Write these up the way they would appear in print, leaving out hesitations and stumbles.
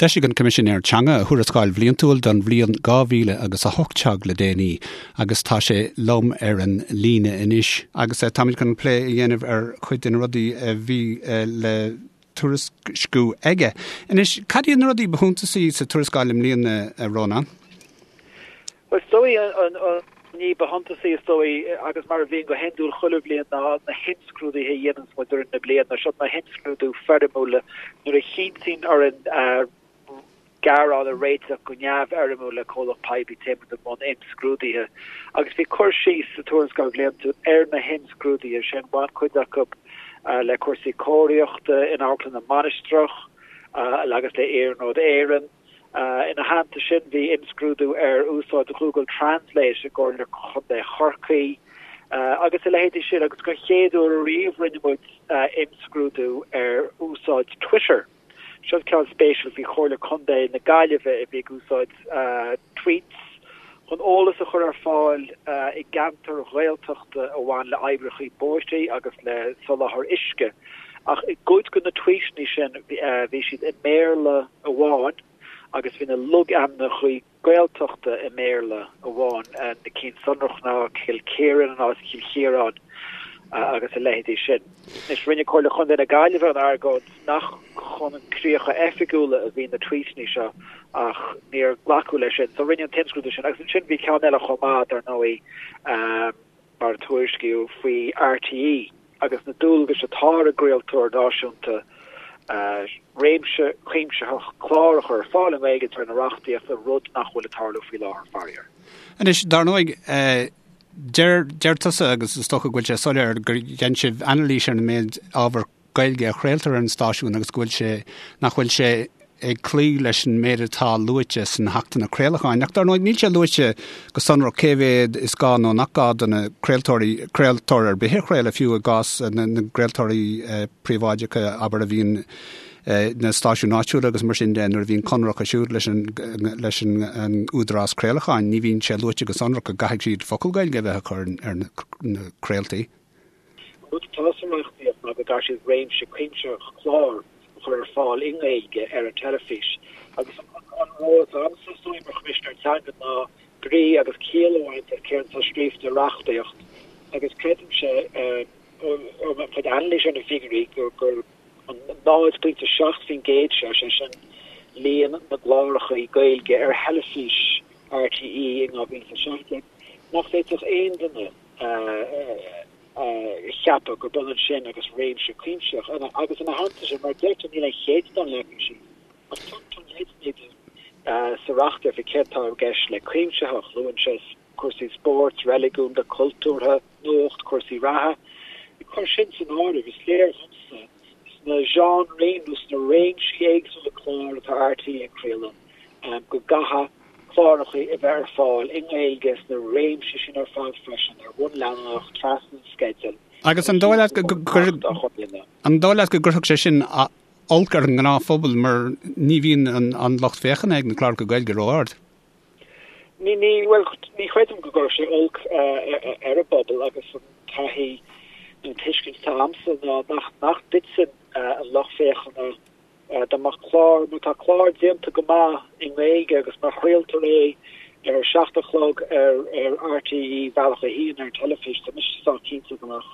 D'eisigh an Coimisinéir Teanga a thuarascáil bhliantúil don bhliain 2000 agus 18 le déanaí agus tá sé liom ar an líne anois. Agus táimid chun plé a dhéanamh ar chuid de na rudaí a bhí le tuairisciú aige. Anois, cad iad na rudaí ba shuntasaí sa tuarascáil i mbliana, a Rónán? Bhuel, is dóigh an ní ba shuntasaí, is dóigh, agus mar a bhíonn go hiondúil chuile bhliain, ná na himscrúduithe a dhéananns muid i rith na bliana. Seo na himscrúdú foirmiúla nuair a chinntíonn orainn gearán a réiteach go neamhfhoirmiúil le comhlacht poiblí téann muid i mbun imscrúduithe. Agus bhí cur síos sa tuarascáil bhliantúil ar na himscrúduithe sin, bhain cuid acu le cúrsaí cóiríochta in Amharclann na Mainistreach agus le Iarnród Éireann. Ina theannta sin, bhí imscrúdú ar úsáid Google Translate i gComhairle Chontae Chorcaí agus a leithéidí sin agus den chéad uair ariamh rinne muid imscrúdú ar úsáid Twitter. Seo ceann spéisiúil faoi Chomhairle Contae na Gaillimhe a bhí ag úsáid tweets chun eolas a chur ar fáil i gceantair Ghaeltachta a bhain le oibreacha bóithre agus le soláthar uisce. Ach i gcuid de na tweetanna sin bhí siad i mBéarla amháin agus bhí na logainmneacha Gaeltachta i mBéarla amháin, na cinn sonrach ná Cill Kieran in áit Chill Chiaráin agus a leithéidí sin. Anois, rinne Comhairle Chontae na Gaillimhe an argóint nach chun críocha oifigiúla a bhí na tweetanna seo ach níor glacadh leis sin. So rinneadh an t-imscrúdú sin agus ansin bhí ceann eile chomh maith, dar ndóigh, mar a tuairiscíodh faoi RTÉ agus na dualgais atá ar an gcraoltóir náisiúnta réimse cuimsitheach clár a chur ar fáil i nGaeilge de réir na reachtaíochta, rud nach bhfuil ag tarlú faoi láthair, faraor. Anois, dar ndóigh, deir, deir tusa, agus is dócha go bhfuil sé soiléir, gur dhein sibh anailís ar an méid ábhar Gaeilge a chraoltar ar an stáisiún agus go bhfuil sé, nach bhfuil sé ag cloí leis an méid atá luaite sna hAchtanna Craolacháin. Ach dar ndóigh níl sé luaite go sonrach cé mhéad is gá nó nach gá do na craoltóirí, craoltóir ar bith a chraoladh, fiú i gcás na gcraoltóirí príobháideacha, abair, a bhíonn na stáisiúin áitiúla agus mar sin de, nuair a bhíonn conradh acu siúd leis an leis an Údarás Craolacháin, ní bhíonn sé luaite go sonrach go gcaithfidh siad focal Gaeilge a bheith acu ar na craoltaí. An rud atá sa reachtaíocht ná go gcaithfidh siad réimse cuimsitheach clár a chur ar fáil i nGaeilge ar an teilifís agus an ról atá agamsa is dóigh mar Choimisinéir Teanga ná brí agus ciall a bhaint as céard atá scríofa i reachtaíocht agus creidimse ó mo chuid anailíse ar na figiúirí gur an 0.7% seo, sé sin líon na gcláracha Gaeilge ar theilifís RTÉ in 2017, nach bhféadfadh aon duine a cheapadh gurb ionann sin agus réimse cuimsitheach. Agus ina theannta sin, mar a deir tú, níl aon chéatadán leagtha síos, ach tugtar leideanna dúinn sa reachtaíocht faoi céard atá i gceist le cuimsitheach. Luann sé cúrsaí spóirt, reiligiúnda, cultúrtha, nuacht, cúrsaí reatha. Ag cur sin san áireamh, is léir dhomsa sna genres nó sna réimsí éagsúla clár atá RTÉ ag craoladh, go gcaithfidh cláracha a bheith ar fáil i nGaeilge sna réimsí sin ar fad freisin, ar bhonn leanúnach, trasna an sceidil. Agus an dóigh leat go an dóigh leat go gcuirfeadh sé sin olc ar an ngnáthphobal mar ní bhíonn an lucht féachana ag na cláracha Gaeilge ró-ard? Ní, ní, bhuel, ní chreidim go gcuirfeadh sé olc ar an bpobal agus an taithí nó an tuiscint atá agamsa ná nach, nach dtiteann an lucht féachana dá mbeadh clár, má tá clár déanta go maith i nGaeilge agus má chraoltar é ar a 7 a chlog ar ar RTÉ Bealach 1 ar an teilifís, tá mise sách cinnte go mbeadh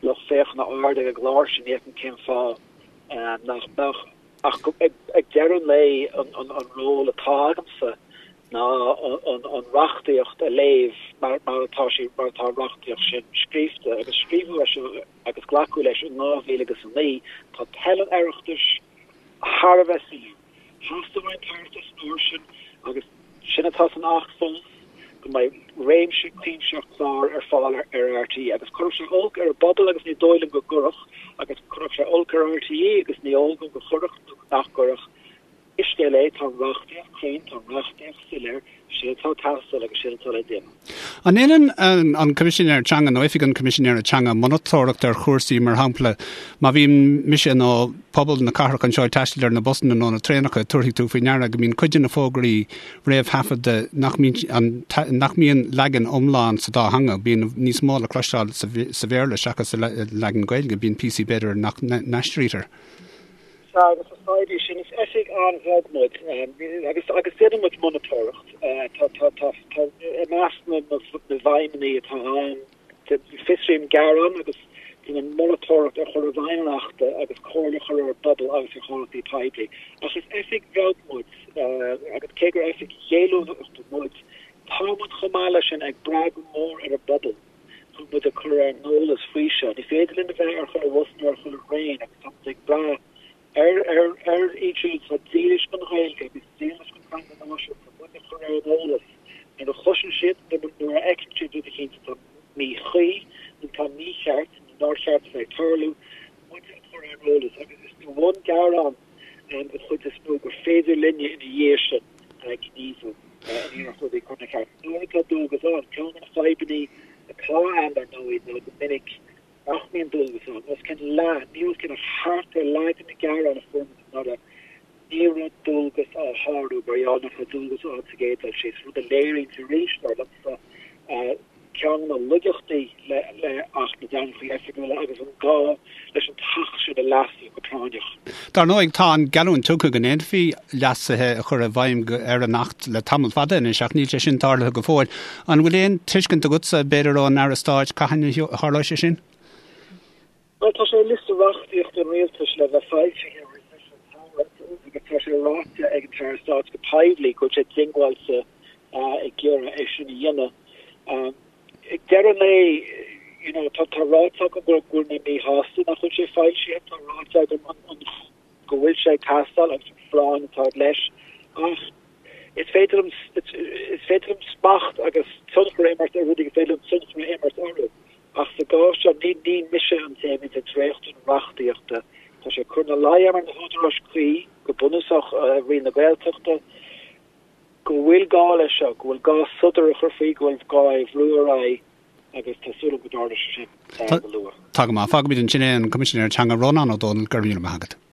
lucht féachana ard ag an gclár sin, ní fheicim cén fáth nach mbeadh. Ach ag deireadh an lae, an ról atá agamsa ná an reachtaíocht a léamh mar atá sí, mar atá an reachtaíocht sin scríofa. Agus scríobhadh é seo agus glacadh leis in 2009. Tá toil an Oireachtais thar a bheith soiléir. Theastaigh ón Oireachtas an uair sin, agus sin atá san Acht fós, go mbeidh réimse cuimsitheach clár ar fáil ar RTÉ. Agus chuirfeadh sé olc ar an bpobal agus ní dóigh liom go gcuirfeadh, agus chuirfeadh sé olc ar RTÉ agus ní eol dom go gcuirfeadh nó nach gcuirfeadh. Pé scéal é, tá an reachtaíocht cruinn, tá an reachtaíocht soiléir, sin atá ag teastáil agus sin atá le déanamh. An ndéanann an Coimisinéir Teanga nó Oifig an Choimisinéara Teanga monatóireacht ar chúrsaí, mar shampla, má bhíonn mise nó pobal na cathrach anseo ag taisteal ar na busanna nó na traenacha, tabharfaidh tú faoi ndeara go mbíonn cuid de na fógraí réamhthaifeadta nach mbíonn nach mbíonn leagan iomlán sa dá theanga, bíonn níos mó le cloisteáil sa Bhéarla seachas sa leagan Gaeilge, bíonn píosaí b'fhéidir nach n-aistrítear. Sea, agus is fadhb í sin. Is oifig an-bheag muid agus agus déanann muid monatóireacht. Tá tá tá tá i measc na na bhfeidhmeanna atá ann, fiosraím gearáin agus déanaim monatóireacht ar chur i bhfeidhm an Achta agus comhairle a chur ar an bpobal agus ar chomhlachtaí poiblí. Ach is oifig bheag muid agus cé gur oifig ghéilliúnachta muid, tá muid chomh maith leis sin ag brath go mór ar an bpobal. chun muid a chur ar an eolas faoi seo. Ní féidir linn a bheith ar chuile bhus nó ar chuile thraein agus tá muid ag brath ar ar ar iad siúd atá dílis don Ghaeilge agus dílis don teanga náisiúnta muid a chur ar an eolas nuair a chloiseann siad nó nuair a fheiceann siad rud eicínt atá míchuí nó atá mícheart nó nár cheart a bheith ag tarlú, muid a chur ar an eolas agus is de bhun gearán an chuid is mó gur féidir linne ina dhiaidh sin gníomhú in iarracht rudaí a chur ina cheart. Nuair atá dualgas ann, ceann de na fadhbanna atá ann dar ndóigh ná go minic nach mbíonn dualgas ann. Os cionn leath, ní os cionn ach thart ar leath de na gearáin a fuair muid anuraidh, ní raibh dualgas á shárú mar gheall nach raibh dualgas ann sa gcéad dul síos, rud a léiríonns arís, dar liomsa, ceann de na laigeachtaí le Acht na dTeangacha Oifigiúla agus an gá leis an tAcht sin a leasú go práinneach. Dar ndóigh, tá an geallúint tugtha go ndéanfaí leasuithe a chur i bhfeidhm ar an Acht le tamall fada anois ach níl sé sin tarlaithe go fóill. An bhfuil aon tuiscint agatsa, b'fhéidir ón Aire Stáit, cathain a tharlóidh sé sin? Bhuel, tá sé ar liosta reachtaíochta an Rialtais le bheith foilsithe roimh an tsamhradh agus tá sé ráite ag an tAire Stáit go poiblí go bhfuil sé diongbháilte ag iarraidh é sin a dhéanamh. Ag deireadh an lae, you know, tá ráite agam go bhfuil mé míshásta nach bhfuil sé foilsithe, tá ráite agam go bhfuil sé ag teastáil agus an phráinn atá leis ach is féidir liom is féidir liom smacht agus tionchar a imirt ar rudaí gur féidir liom tionchar a imirt orthu. Ach sa gcás seo, ní ní mise an té a bhíonns ag dréachtú na reachtaíochta. Tá sé ag cur ina luí orm ar na húdaráis cuí, go bunúsach Roinn na Gaeltachta, go bhfuil gá leis seo, go bhfuil gá sodar a chur faoi, go bhfuil gá é a bhrú ar aghaidh agus tá súil agam go dtarlóidh sé sin go luath. Tá go maith. Fágfaimid ansin é, an Coimisinéir Teanga Rónán Ó Domhnaill, go raibh míle maith agat.